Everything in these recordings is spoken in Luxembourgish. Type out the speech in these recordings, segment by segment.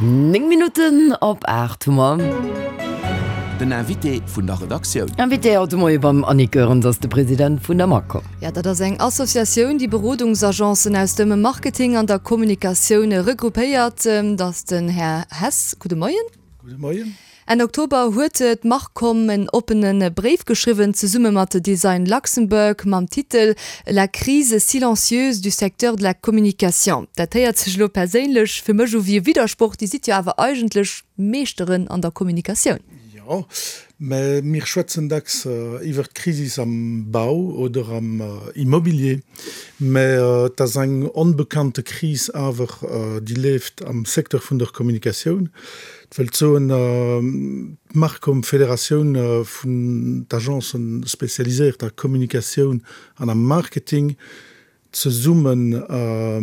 9 Minutten op 8 hu mer. Den Invité vun der Redaktioun. Invité haut de Moie beim Annick Goerens ass de President vun der Macom. Jo, dat ass eng Associatioun, déi Berodungsagencen aus dem Marketing an der Kommunikatioun regroupéiert. Dat ass den Här Hess. Gudde Moien. Gudde Moien. Enn Oktober huet d'Marcom en oppene Bréif geschriwwen, zesumme mat Design Luxembourg, mam Titel La crise silencieuse du secteur de la communication. Dat héiert sech elo perséinlech fir mech u wéi e Widdersproch, Dir sidd jo awer eigentlech Meeschteren an der Kommunikatioun. Jo, mä mir schwätzen dacks iwwert d'Krisis am Bau oder am Immobilier, mä et ass eng onbekannte Kris awer, déi leeft am Secteur vun der Kommunikatioun. Et wëllt soen, d'Marcom, Federatioun vun d'Agencen spécialiséiert a Kommunikatioun an am Marketing, zesumme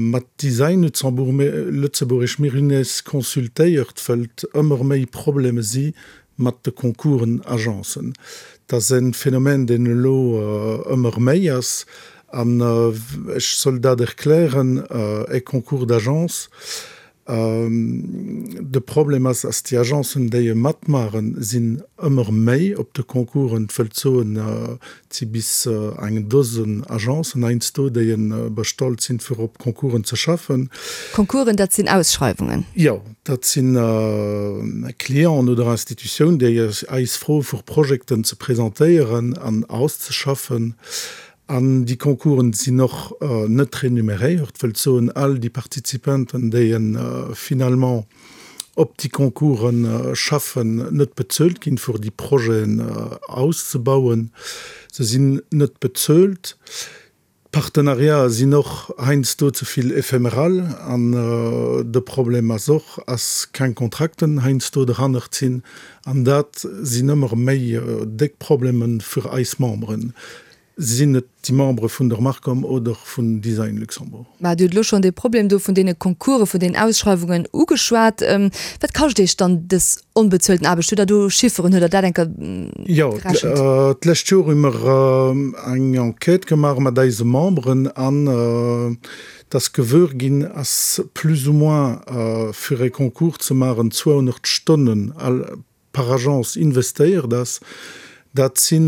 mat Design Luxembourg, Lëtzebuergesch, mir hunn eis consultéiert, wëllt ëmmer méi Probleme si mat de Concoursen Agencen. Et ass e Phänomen, deen elo ëmmer méi ass. An ech soll dat erklären, e Concours d'agence, De Problem ass, ass déi Agencen, déi e matmaachen, sinn ëmmer méi op de Concoursen. Et wëllt soen, et si bis eng Dosen Agencen heiansdo, déi e bestallt sinn, fir op Concoursen ze schaffen. Concoursen, dat sinn Ausschreiwungen? Jo, dat si Clienten oder Institutiounen, déi eis froe fir Projekten ze presentéieren an auszeschaffen. An déi Concoursen sinn och net renuméréiert, wëllt soen, all déi Participanten, déi finalement op déi Concoursen schaffen, net bezuelt ginn, fir déi Projeten auszebauen. Se sinn net bezuelt. D'Partenariaten sinn och heiansdo ze vill éphéméral. An de Problem ass och, ass keng Kontrakten heiansdo derhannert sinn. An dat sinn ëmmer méi déck Problemen fir eis Memberen. Sinn et déi Membere vun der Marcom oder vun Design Luxembourg? Mä Dir hutt elo schonn dee Problem do vun deene Concoursen, vun deenen Ausschreiwungen ugeschwat. Wat kascht Iech dann dës onbezuelten Aarbecht? Hutt Der do Chifferen? Hutt Der dat eng Kéier Jo, gerechent? d'lescht Joer hu mer eng Enquête gemaach mat eise Memberen an et ass gewuer ginn, ass plus ou moins fir e Concours ze maachen 200 Stonnen par Agence investéiert ass, dat si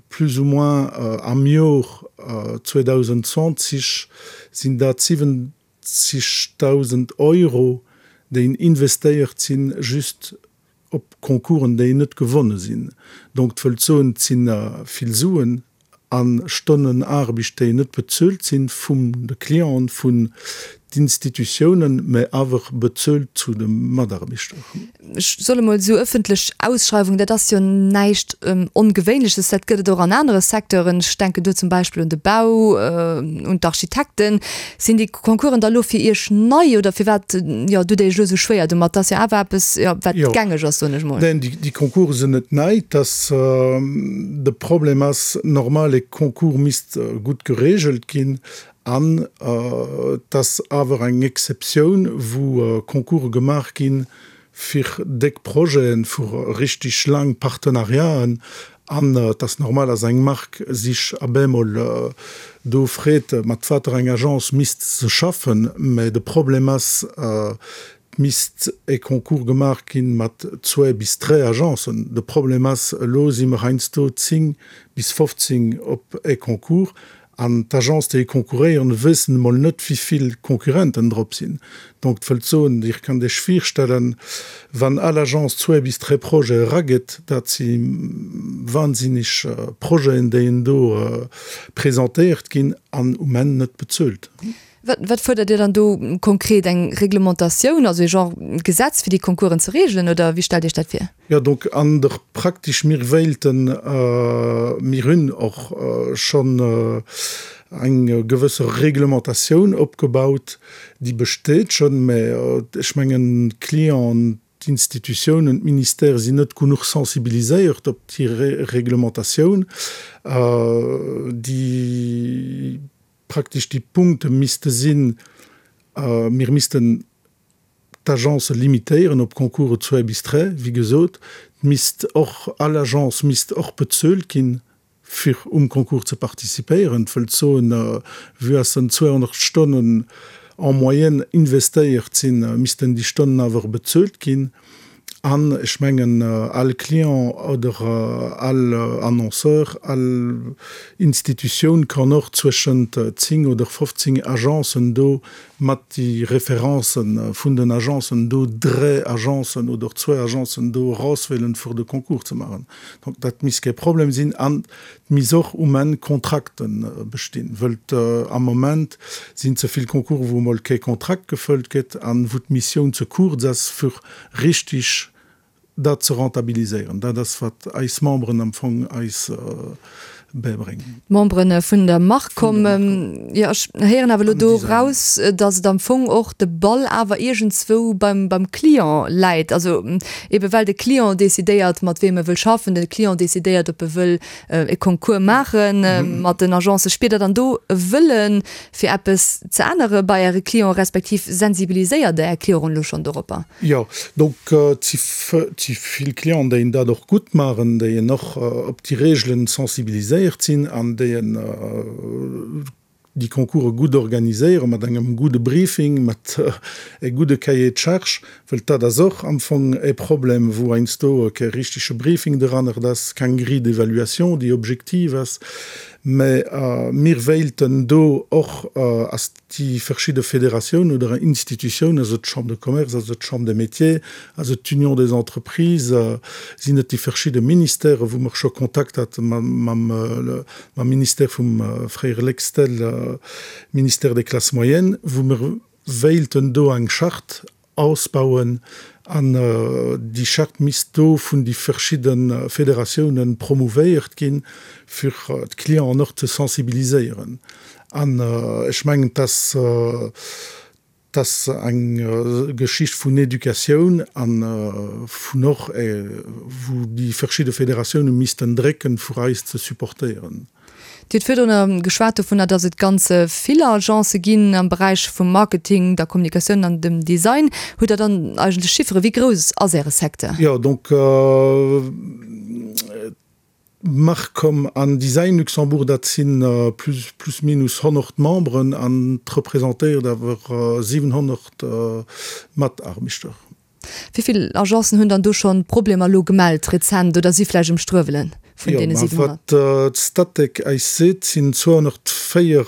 plus ou moins am Jor 2020 sinn dat 70.000 Euro, déi investéiert sinn, just op Concoursen, déi net gewonne sinn. Donc, dat wëllt soen, et si vill Suen a Stonnen Aarbecht, déi net bezuelt sinn vum de Clienten, vun d'Institutiounen, mä awer bezuelt zu de Mataarbechter. Ech soll emol esou, ëffentlech Ausschreiwung, dat ass jo näischt Ongewéinleches, dat gëtt et och an anere Secteuren. Ech denken do zum Beispill un de Bau, un d'Architekten. Sinn déi Concoursen da lo fir Iech nei oder firwat, jo, dutt Dir Iech elo esou schwéier domat? Dat ass jo awer eppes, jo, wat gängeg ass, soen ech mol. Neen, déi Concourse sinn net nei. Dass de Problem ass, normal e Concours misst gutt geregelt ginn an et ass awer eng Exceptioun, wou Concourse gemaach ginn, fir déck Projeten, fir richtig laang Partenariaten. An et ass normal, dass eng Mark sich ab eemol do freet, mat water eng Agence misst se schaffen. Mä de Problem ass, et misst e Concours gemaach ginn mat zwee bis dräi Agencen. De Problem ass, elo si mer heiansdo 10 bis 15 op e Concours An d'Agence, déi konkurréieren, wëssen emol net, wéi vill Concurrenten drop sinn. Donc, et wëllt soen, Dir kënnt Iech virstellen, wann all Agence zwee bis dräi Projete eragëtt, dat si wahnsinneg Projeten, déi en do presentéiert ginn an um Enn net bezuelt. Wat fuerdert Dir dann do konkret? Eng Reglementatioun, also ee Genre Gesetz, fir déi Concoursen ze regelen, oder wéi stellt Iech dat vir? Jo, donc an der praktesch, mir wéilten, mir hunn och schonn eng gewësse Reglementatioun opgebaut, déi besteet schonn, mä ech mengen d'Clienten, d'Institutiounen, d'Ministèrë sinn net genuch sensibiliséiert op déi Reglementatioun, déi praktesch déi Punkte misste sinn, mir missten d'Agence limitéieren op Concourse zwee bis dräi, wéi gesot, et misst och, all Agence misst och bezuelt ginn, fir um Concours ze participéieren. Et wëllt soen, vue dass en 200 Stonnen. En moyenne investéiert sinn, missten déi Stonnen awer bezuelt ginn. An ech mengen, all Client oder all Annonceur, all Institutioun kann och zwëschent 10 oder 15 Agencen do mat déi Référencen vun den Agencen do dräi Agencen oder zwou Agencen do erauswielen, fir de Concours ze maachen. Donc dat misst kee Problem sinn. An et misst och um Enn Kontrakte bestinn, wëll am Moment sinn ze vill Concoursen, wou emol kee Kontrakt gefëllt gëtt an wou d'Missioun ze kuerz ass, fir richtig dat ze rentabiliséieren. Dat ass, wat eis Memberen am Fong eis bäibréngen. D'Membere vun der Marcom. Jo, ech héieren awer elo do raus, datt et am Fong och de Ball awer iergendzwou beim, beim Client läit. Also ebe well de Client decidéiert, mat weem e wëll schaffen, de Client decidéiert, ob e wëll e Concours maache mat den Agencen. Spiert Der dann do e Wëllen, fir eppes ze ännere bei Äre Clienten, respektiv sensibiliséiert Der Är Clienten elo schonn doropper? Jo, donc et si vill Clienten, déi dat och gutt maachen, déi och op déi Reegelen sensibiliséiert sinn an déi déi Concourse gutt organiséieren, mat engem gudde Briefing, mat e gudde Cahier de charges, wëll dat ass och am Fong e Problem, wou heiansdo kee richtege Briefing derannert ass, keng Grille d'évaluation, déi objektiv ass. Mä mir wéilten do och, ass déi verschidde Federatiounen oder Institutiounen, also d'Chambre de Commerce, also d'Chambre des Métiers, also d'Union des Entreprises, sinn et déi verschidde Ministèren, wou mer scho Kontakt hate mam Ministère vum fréiere Lextel, Ministère des Classes moyennes, wou mer wéilten do eng Charte ausbauen an déi Charte misst do vun déi verschidde Federatiounen promouvéiert ginn, fir d'Clienten och ze sensibiliséieren. An ech mengen, dass dass eng Geschicht vun Educatioun a vun och wou déi verschidde Federatiounen missten drécken, fir eis ze supportéieren. Dir hutt virdrun geschwat dovunner, datt et ganz vill Agencë ginn am Beräich vum Marketing, der Kommunikatioun an dem Design. Hutt Der dann eigentlech Chifferen? Wéi grouss ass Äre Secteur? Jo, donc Marcom an Design Luxembourg, dat si plus minus 100 Memberen an et representéiert awer 700 Mataarbechter. Wéi vill Agencen hunn dann do schonn Problemer elo gemellt rezent oder si vläicht um Struewelen vun deene 700? Jo, ma wat d'Statec eis seet, sinn 204,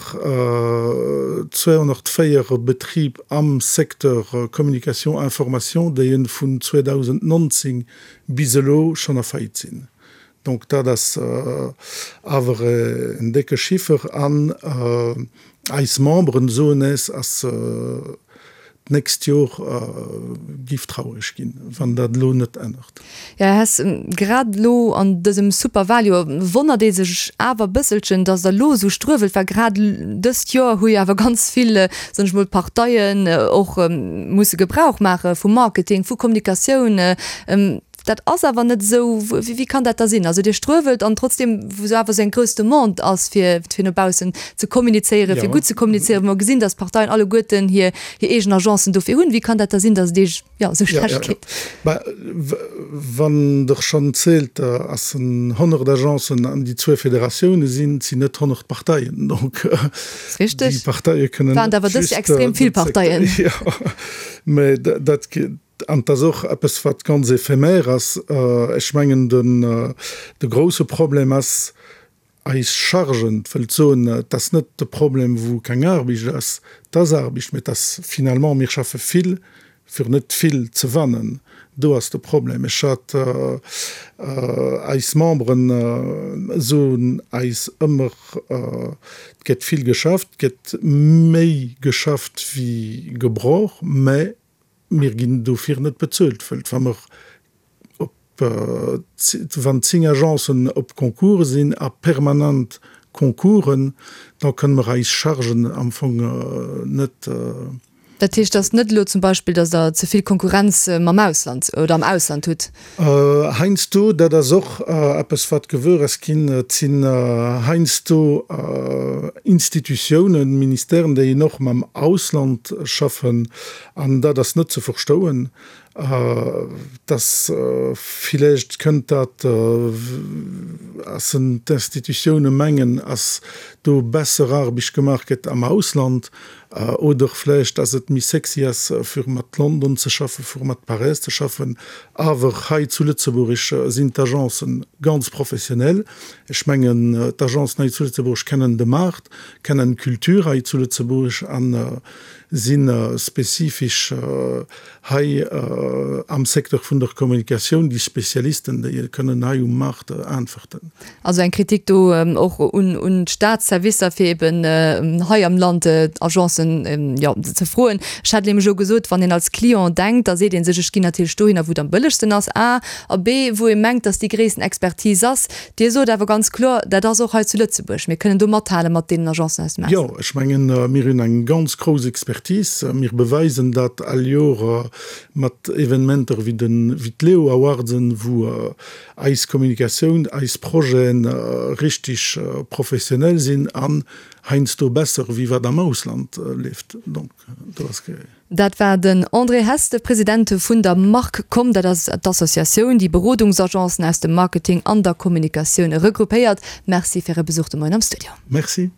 204 Betrib am Secteur Communication information, déi vun 2019 bis elo schonn a Faillite sinn. Donc dat ass awer en décke Chiffer an eis Memberen soen es, ass d'nächst Jor giff traureg ginn, wann dat elo net ännert. Jo, Här Hess, grad elo an dësem Superwaljoer wonnert ee sech awer e bësselchen, datt Der elo esou struewelt, well grad dëst Joer hu jo awer ganz vill, soen ech mol, Parteien och musse Gebrauch maache vu Marketing, vu Kommunikatioun. Dat ass awer net esou. Wéi kann dat da sinn? Also Dir struewelt an trotzdem, wou awer esou eng grouss Demande ass, fir fir no baussen ze kommunizéieren, fir gutt ze kommunizéieren, wou mer gesinn, datt d'Parteien alleguerten hir hir eegen Agencen dofir hunn, wéi kann dat da sinn, datt et Iech, jo, esou schlecht geet? Bah, wann Der schonn zielt, ass en 100 Agencen an déi zwou Federatioune sinn, et sinn net 100 Parteien. Donc déi Parteie kënnen net just. Waren et awer dës Joer extrem vill Parteien. Jo, mä dat. An et ass och eppes, wat ganz éphémère ass. Ech mengen, de grouse Problem ass eis Chargen. Et wëllt soen, et ass net de Problem, wou keng Aarbecht ass. Et ass Aarbecht, mä et ass finalement, mir schaffe vill, fir net vill ze wannen. Do ass de Problem. Ech hat, eis Memberen soen eis ëmmer, et gëtt vill geschafft, et gëtt méi geschafft wéi gebraucht, mä Mir ginn dofir net bezuelt, wëll wa mer op, wann 10 Agencen op Concours sinn a permanent Concoursen, da kënne mer eis Chargen am Fong net. Dat heescht, et ass net elo zum Beispill, datt Der ze vill Konkurrenz mam Ausland oder am Ausland hutt? Heiansdo, dat ass och eppes wat gewuer ass ginn, et sinn heiansdo Institutiounen, Ministèren, déi een och mam Ausland schaffen, an dat ass net ze verstouen, dass villäicht kënnt dat, ass en d'Institutioune mengen, ass do besser Aarbecht gemaach gëtt am Ausland. Oder vläicht, dass et méi sexy ass, fir mat London ze schaffen, fir mat Paräis ze schaffen. Awer hei zu Lëtzebuerg sinn d'Agencen ganz professionell. Ech mengen, d'Agencen hei zu Lëtzebuerg kennen de Maart, kennen d'Kultur hei zu Lëtzebuerg a si spezifesch hei am Secteur vun der Kommunikatioun déi Spezialisten, déi kënnen hei um Maart äntwerten. Also eng Kritik do och un d'Staatsservicer, fir eben hei am Land Agencen, jo, ze froen. Ech hat nämlech elo gesot, wann een als Client denkt, da seet ee sech, ech ginn natierlech dohinner, wou et am bëllegsten ass, a. A b, wou ee mengt, datt déi gréissten Expertise ass. Dir sot awer ganz kloer, dat ass och hei zu Lëtzebuerg. Mir kënnen do mathale mat deenen Agencen aus dem Ausland. Jo, ech mengen, mir hunn eng ganz grouss Expertise. Mir beweisen dat all Joer mat Evenementer wéi d'Leo Awardsen, wou eis Kommunikatioun, eis Projeten richtig professionell sinn an heiansdo besser wéi wat am Ausland leeft. Donc do ass. Dat war den André Hess, de President vun der MarkCom. Dat ass d'Associatioun, déi Berodungsagencen aus dem Marketing an der Kommunikatioun regroupéiert. Merci fir Är Besuch de Moien am Studio. Merci.